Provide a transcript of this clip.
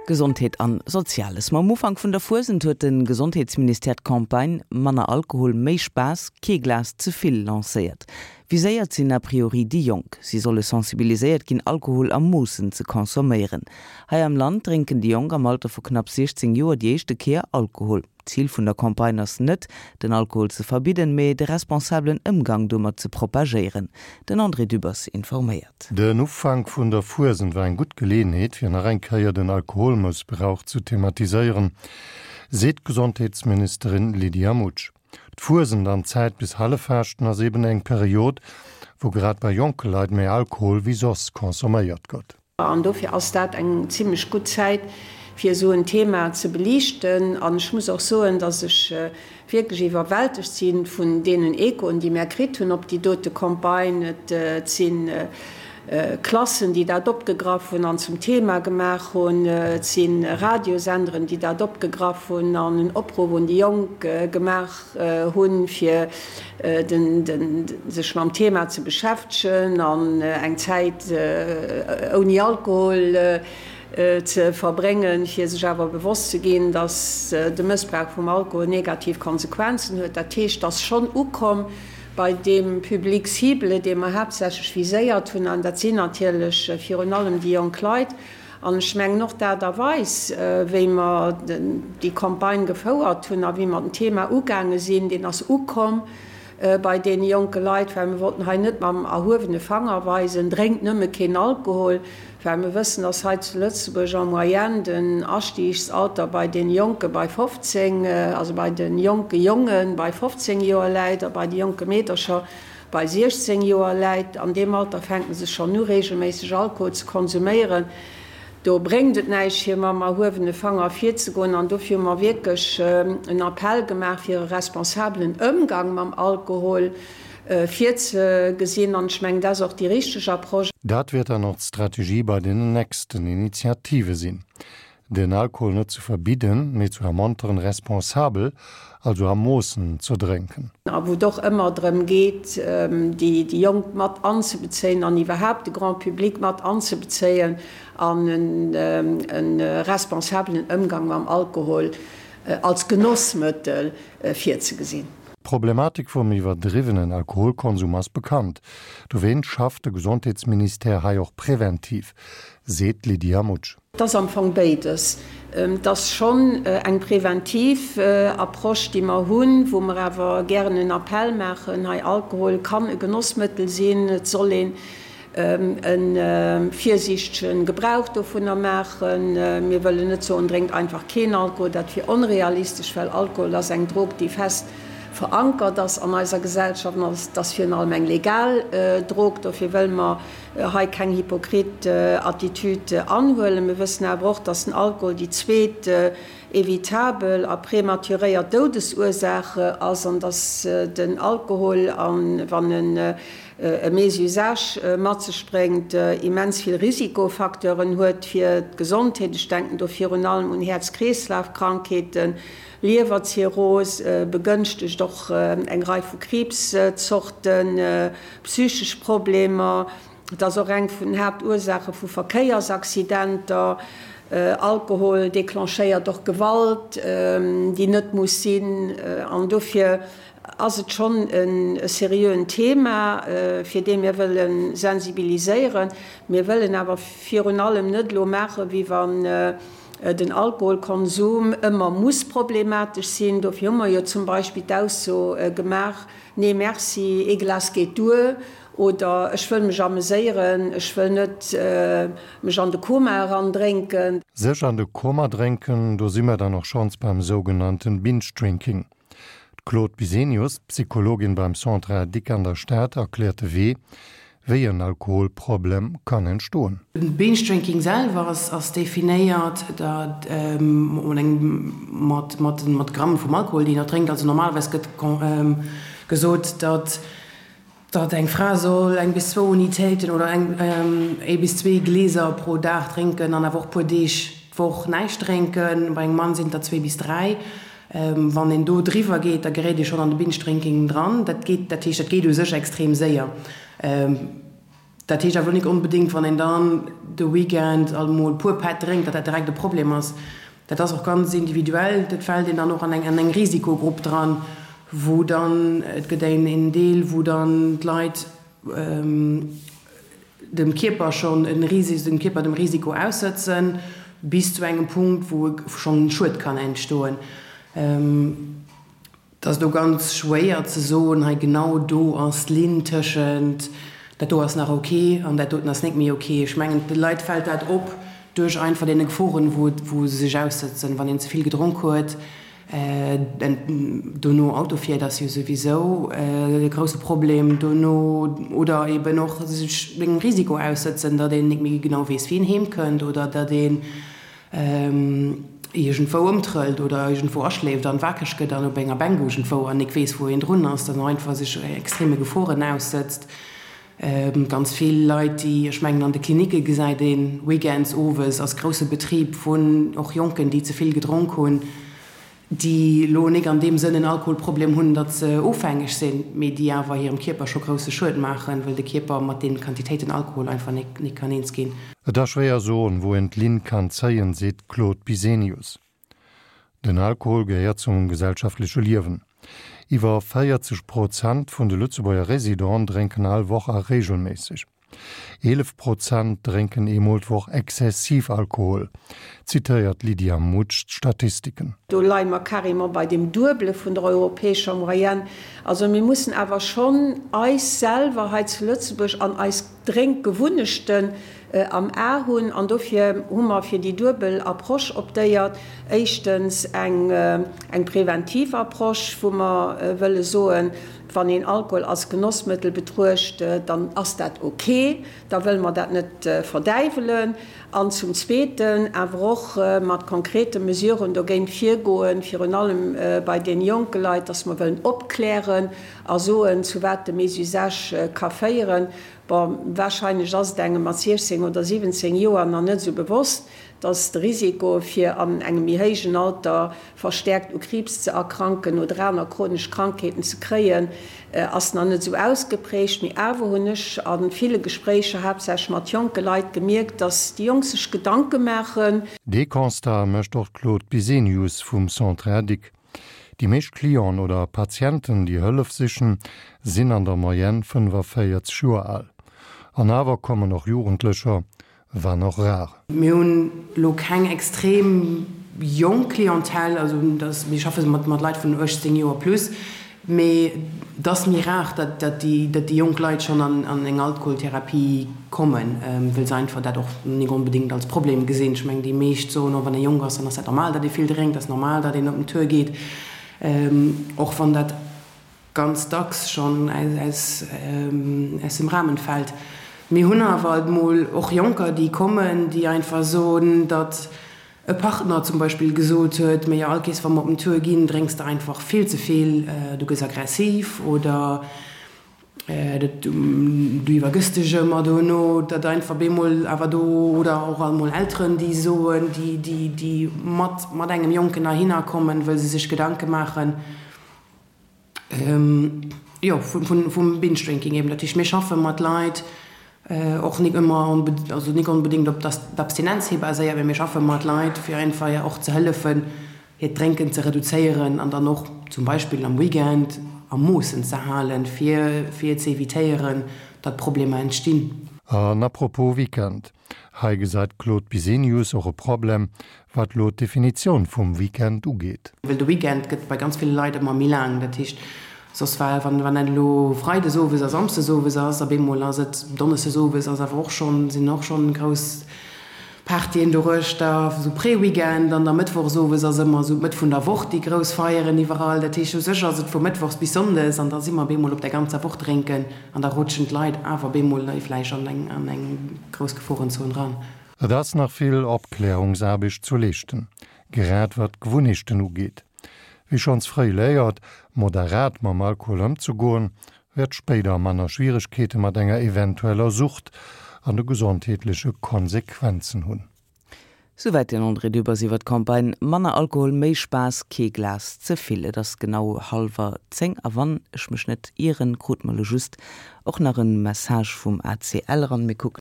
Gesondheet an Soziales. Mam Ufank vun der Fuesent huet de Gesondheetsministère d'Campagne Manner Alkohol, méi Spaass, kee Glas ze vill lancéiert. Viséiert sinn a priori déi Jonk. Si solle sensibiliséiert ginn, Alkohol a Moossen ze consomméieren. Hei am Land drénken déi Jonk am Alter vu knapp 16 Joer déi éischte Kéier Alkohol. D'Zil vun der Campagne ass net, den Alkohol ze verbidden, mee de responsabelen Ëmgang domat ze propagéieren. Den André Dübbers informéiert. Den Ufank vun der Fuesent war eng gutt Geleeënheet, fir nach eng Kéier den Alkoholmëssbrauch zu thematiséieren, seet d'Gesondheetsministerin Lydia Mutsch. D'Fuesent an d'Zäit bis Halleffaaschten ass eben eng Period, wou grad bei jonke Leit méi Alkohol wéi soss consomméiert gëtt. An dofir ass dat eng zimlech gutt Zäit, fir esou en Thema ze beliichten. An ech muss och soen, dass ech wierklech iwwerwältegt si vun deenen Echoen, déi mär kritt hunn op déi dote Campagne. Et si Klassen, déi dat opgegraff hunn an zum Thema gemaach hunn. Et si Radiosenderen, déi dat opgegraff hunn an en Opruff un déi Jonk gemaach hunn, fir sech mam Thema ze beschäftegen an eng Zäit ouni Alkohol ze verbréngen, fir sech awer bewosst ze ginn, dass de Mëssbrauch vum Alkohol negativ Konsequenzen huet. Dat heescht, et ass schonn ukomm bei deem Public cible, dee mer haaptsächlech viséiert hunn, an dat sinn natierlech virun allem déi jonk Leit. An ech mengen och d'Aart a Weis, wéi mer déi Campagne gefouert hunn a wéi mer den Thema ugaange sinn, deen ass ukomm bei deene jonke Leit, well mir wollten hei net mam erhuewene Fanger weisen, drénkt nëmme keen Alkohol, well mir wëssen, dass hei zu Lëtzebuerg en moyenne den Astiegsalter bei deene Jonke bei 15, also bei de jonke Jonge bei 15 Joer läit a bei de jonke Meedercher Bei 16 Joer läit, an deem Alter fänken se schonn u regelméisseg Alkohol ze konsuméieren. Do bréngt et näischt fir mam erhuewene Fanger virzegoen an dofir hu mer wierklech en Appell gemaach fir e responsabelen Ëmgang mam Alkohol virzegesinn an ech mengen dat ass och déi richteg Approche. Dat wäert dann och d'Strategie bei den nächsten Initiative sinn. Den Alkohol net ze verbidden, mee zu ermonteren, responsabel, also a Moossen ze drénken. A wou et och ëmmer drëm geet, déi Jonk mat anzebezéien an iwwerhaapt de Grand public mat anzebezéien an e responsabelen Ëmgang mam Alkohol als Genossmëttel virzegesinn. D'Problematik vum iwwerdriwwenen Alkoholkonsum ass bekannt. Dowéint schafft de Gesondheetsministère hei och präventiv, seet d'Lydia Mutsch. Et ass am Fong béides. Et ass schonn eng preventiv Approche, déi mer hunn, wou mer awer gären en Appell maachen, hei Alkohol kann e Genossmëttel sinn, et soll een e virsiichtege Gebrauch dovunner maachen. Mir wëllen net soen, drénkt einfach keen Alkohol, dat wier onrealistesch, well Alkohol ass eng Drog, déi fest verankert ass an eiser Gesellschaft an et ass virun allem eng legal Drog. Dofir wëlle mer hei keng hypokrit Attitüd anhuelen. Mir wëssen awer och, dass den Alkohol déi zweet evitabel a prematuréiert Doudesursaach ass an dass den Alkohol, wann en e Mésusage mat sech bréngt, immens vill Risikofacteuren huet fir d'Gesondheet. Ech denken do virun allem un Häerz-Kreeslaf-Krankheeten, Liewerzirrhos, begënschtegt och eng Rei vu Kriibszorten, Psychesch Problemer, et ass och eng vun den Haaptursaache vu Verkéiersaccidenter. Alkohol declenchéiert och Gewalt, déi net muss sinn. An dofir ass et schonn e seriöen Thema, fir dee mir wëlle sensibiliséieren. Mir wëllen awer virun allem net elo maachen, wéi wann den Alkoholkonsum ëmmer muss problematesch sinn. Dofir hu mer jo zum Beispill d'Ausso gemaach, Nee merci, ee Glas geet duer oder ech wëll mech ameséieren, ech wëll net mech an de Koma eran drénken. Sech an de Koma drénken, do si mer dann och schonns beim sougenannten Binge Drinking. D'Claude Bisenius, Psychologin beim Centre Addic an der Stad, erkläert de Wee, wéi en Alkoholproblem kann entstoen. Binge Drinking selwer ass definéiert mat Gramm vum Alkohol, deen een drénkt. Also normalerweis gëtt gesot, datt eng Fra soll eng bis zwou Unitéiten oder ee bis zwee Glieser pro Dag drénken an awer och puer Deeg d'Woch näischt drénken. Bei engem Mann sinn et der zwee bis dräi. Wann een do driwwer geet, da geréit ee schonn an de Binge Drinking dran. Dat geet, dat heescht, dat geet u sech extrem séier. Dat heescht awer elo nik onbedéngt, wann een dann de Weekend alt emol e puer Pätt drénkt, datt dat direkt e Problem ass. Dat ass och ganz individuell. Dat fält een dann och an eng an eng Risikogrupp dran, wou dann, et gëtt een een Deel, wou dann d'Leit dem Kierper schonn e Risi dem Kierper dem Risiko aussëtzen, bis zu engem Punkt, wou e schonn Schued kann entstoen. Et ass do ganz schwéier ze soen, hei genau do ass d'Linn tëschent dat do ass nach ok an dat doten ass net méi ok. Ech mengen, de Leit fält dat op duerch einfach deene Geforen, wou wou se sech aussëtzen, wann een ze vill gedronk huet, dono Auto fiert, ass jo souwisou e grousse Problem dono, oder eben och sech engem Risiko aussëtzen, datt een net méi genau weess, wéi een heem kënnt oder datt een iergendwou ëmtrëllt oder iergendwou aschléift an wakereg gëtt an op enger Bänk iergendwou an nik weess wou een drun ass, dann och einfach sech extreme Geforen aussëtzt. Ganz vill Leit déi, ech mengen an de Klinicke gesäit een weekends owes ass grousse Betrib vun och Jonken déi ze vill gedronk hunn, déi elo nik an deem Sënn en Alkoholproblem hunn, datt se ofhängeg sinn, mee déi awer hirem Kierper scho grousse Schued maachen, wëll de Kierper mat deenen Quantitéiten Alkohol einfach nik nik kann eens ginn. Et ass schwéier soen, wou een d'Linn kann zéien, seet d'Claude Bisenius. Den Alkohol gehéiert zum gesellschaftleche Liewen. Iwwer 40 Prozent vun de Lëtzebuerger Residenten drénken all Woch a reegelméisseg. 11 Prozent drénken eemol d'Woch exzessiv Alkohol, zitéiert d'Lydia Mutsch d'Statistiken. Do leie mer carrément bei dem Duebele vun der europäescher Moyenne. Also mir mussen awer schonn eis selwer hei zu Lëtzebuerg an eis Drénkgewunnechten am A hunn. An dofir hu mer fir déi duebel Approche optéiert. Éischtens eng eng preventiv Approche, wou mer wëlle soen, Wann een Alkohol als Genossmëttel betruecht, dann ass dat ok, da wëlle mer dat net verdäiwelen. An zum Zweeten awer och mat konkrete Mesuren dogéint virgoen, virun allem bei deene jonke Leit, dass mer wëllen opklären a soen, zu wat de Mésusage ka féieren. Bon, wahrscheinlech ass et engem mat 16 oder 17 Joer nach net esou bewosst, dass de Risiko fir an engem méi héijen Alter verstäerkt u Kriibs ze erkranken oder aner chronesch Krankheeten ze kréien, ass nach net esou ausgeprägt. Mee awer hunn ech a ville Gespréicher, haaptsächlech mat jonke Leit, gemierkt, dass déi Jonk sech Gedanke maachen. Dee Constat mécht och d'Claude Bisenius vum Centre Adic. Déi meescht Clienten oder Patienten, déi Hëllef sichen, sinn an der Moyenne 45 Joer al. An awer kommen och Jugendlecher, wann och rar. Mir hunn elo keng extrem jonk Clientèle, also dass mir schaffe mat mat Leit vun 18 Joer plus, mee et ass méi rar, datt datt déi datt déi jonk Leit schonn an an eng Alkoholtherapie kommen, wëll se einfach dat och nik onbedéngt als Problem gesinn. Ech mengen déi meescht soen och, wann ee jonk ass, dann ass dat normal, datt ee vill drénkt, ass normal, datt een op den Tour geet, och wann dat ganz dacks schonn aus dem Rahmen fällt. Mir hunn awer alt mol och Jonker, déi kommen, déi einfach soen, datt e Partner zum Beispill gesot huet, Mee jo, all Kees wa mer op den Tour ginn, drénks de einfach vill ze vill, du gëss aggressiv oder du iwwergëss dech ëmmer dono. Datt einfach bemol awer do, oder och alt mol Elteren, déi soen, déi mat engem Jonken heihinner kommen, wëll se sech Gedanke maachen, Jo, vum Binge Drinking eben. Dat heescht, mir schaffe mat Leit, och nik ëmmer, also nik onbedéngt op d'Abstinenz hi baséiert, mee mir schaffe mat Leit, fir einfach och ze hëllefen, hiert Drénken ze reduzéieren an dann och zum Beispill am Weekend a Moossen ze halen, fir fir ze evitéieren, datt Problemer entstinn. An à propos Weekend, Hei gesäit d'Claude Bisenius och e Problem, wat lo d'Definitioun vum Weekend ugeet. Well de Weekend gëtt bei ganz ville Leit ëmmer méi laang. Dat heescht, soss war, wann wann dat elo freides owes a samsdes owes ass, op eemol ass et donneschdes owes, ass awer och schonn, sinn och schonn grouss Partyen doruechter, esou Pré-Weekend, an da mëttwochs owes ass ëmmer esou d'Mëtt vun der Woch déi grouss Feieren iwwerall. Dat heescht, u sech ass et vu mëttwochs bis sonndes an da si mer op eemol op der ganzer Woch drénken. An da rutschen d'Leit awer bemol vläicht an eng an eng grouss Geforenzon ran. Et ass nach vill Opklärungsaarbecht zu leeschten, grad wat d'Gewunnechten ugeet. Wie schonns fréi léiert, moderat mam Alkohol ëmzegoen, wäert spéider manner Schwieregkeete mat enger eventueller Sucht an de gesondheetleche Konsequenzen hunn. Souwäit den André Dübbers iwwer d'Campagne Manner Alkohol, méi Spaass, kee Glas ze vill. Et ass genau hallwer 10 a wann ech mech net ieren, krute mer elo just och nach e Message vum ACL eran. Mir kucken.